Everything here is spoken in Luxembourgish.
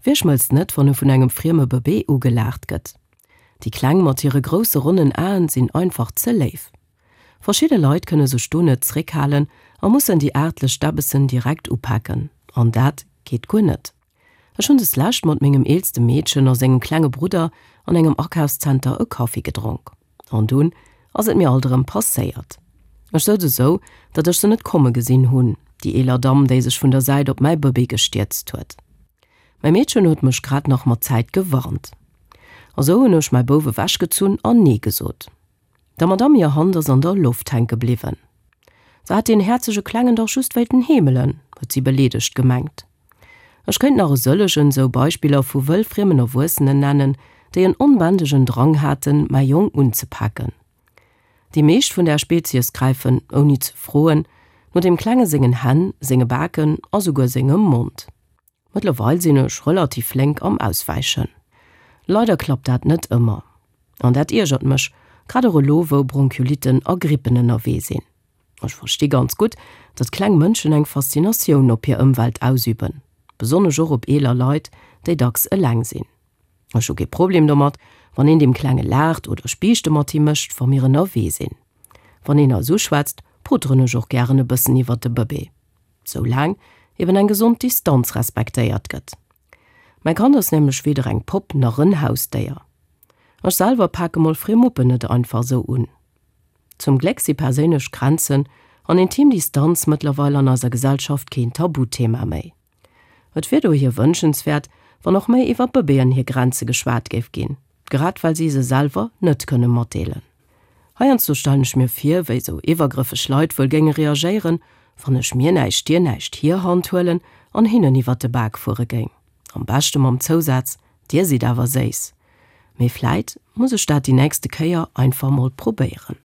Wie schmëlzt net, wann e vun engem frieme Bëbee ugelaacht gëtt? Déi Kleng mat hire grousse ronnen Aen sinn einfach ze léif. Verschidde Leit kënne sech do net zréckhalen a mussen déi aartlech Däbbessen direkt upaken. An dat geet guer net. Ech hunn deslescht mat mengem eelste Meedchen a sengem klenge Brudder an engem Akafszenter e Kaffi gedronk. An dunn ass et mir alt erëm passéiert. Ech souz esou, datt ech se net komme gesinn hunn, déi eeler Damm, déi sech vun der Säit op mäi Bëbee gestierzt huet. Mäi Meedchen huet mech grad nach mat Zäit gewarnt. A sou hunn ech mäi Bouf ewechgezunn an Nee gesot. Der Madamm hir Hand ass an der Loft hänke bliwwen. Se hat deen häerzege Klengen dach just wéilten heemelen, huet si beleedegt gemengt. Ech kéint nach e sëllegen sou Beispiller vu wëllfriemen Erwuessenen nennen, déi en onbändegen Drang haten, mäi Jong unzepaken. Déi meescht vun där Spezies gräifen, ouni ze froen, no deem Klenge sengen Hänn, senge Baken a souguer sengem Mond. Mëttlerweil sinn ech relativ flénk am Auswäichen. Leider klappt dat net ëmmer. An dat iergert mech, grad och elo wou Bronchiolitten a Grippen ënnerwee sinn. Ech versti ganz gutt, datt kleng Mënschen eng Faszinatioun op hir Ëmwelt ausüben, besonnesch och op eeler Leit, déi dacks eleng sinn. Ech hu kee Problem domat, wann een deem Klenge laacht oder Spiichte mat him mécht, wa mir ënnerwee sinn. Wann een eis uschwätzt, poteren ech och gären e bëssen iwwert de Bëbee. Soulaang eben eng gesond Distanz respektéiert gëtt. Mäi Kand ass nämlech weder eng Popp nach en Hausdéier. Ech selwer pake mol friem Muppen net einfach sou un. Zum Gléck si perséinlech Grenzen an intim Distanz mëttlerweil an eiser Gesellschaft keen Tabuthema méi. Et wier dohier wënschenswäert, wann och méi iwwer Bëbeeën hir Grenze geschwat géif ginn, grad well si se selwer net kënne matdeelen. Heiansdo stellen ech mir vir, wéi sou iwwergrëffeg Leit wuel géinge reagéieren, wann ech mir näischt dir näischt hir Hand huelen an hinnen iwwer de Bak fuere géing. Am beschte mam Zousaz, Dir sidd awer séiss. Mee vläit muss ech dat déi nächste Kéier einfach mol probéieren.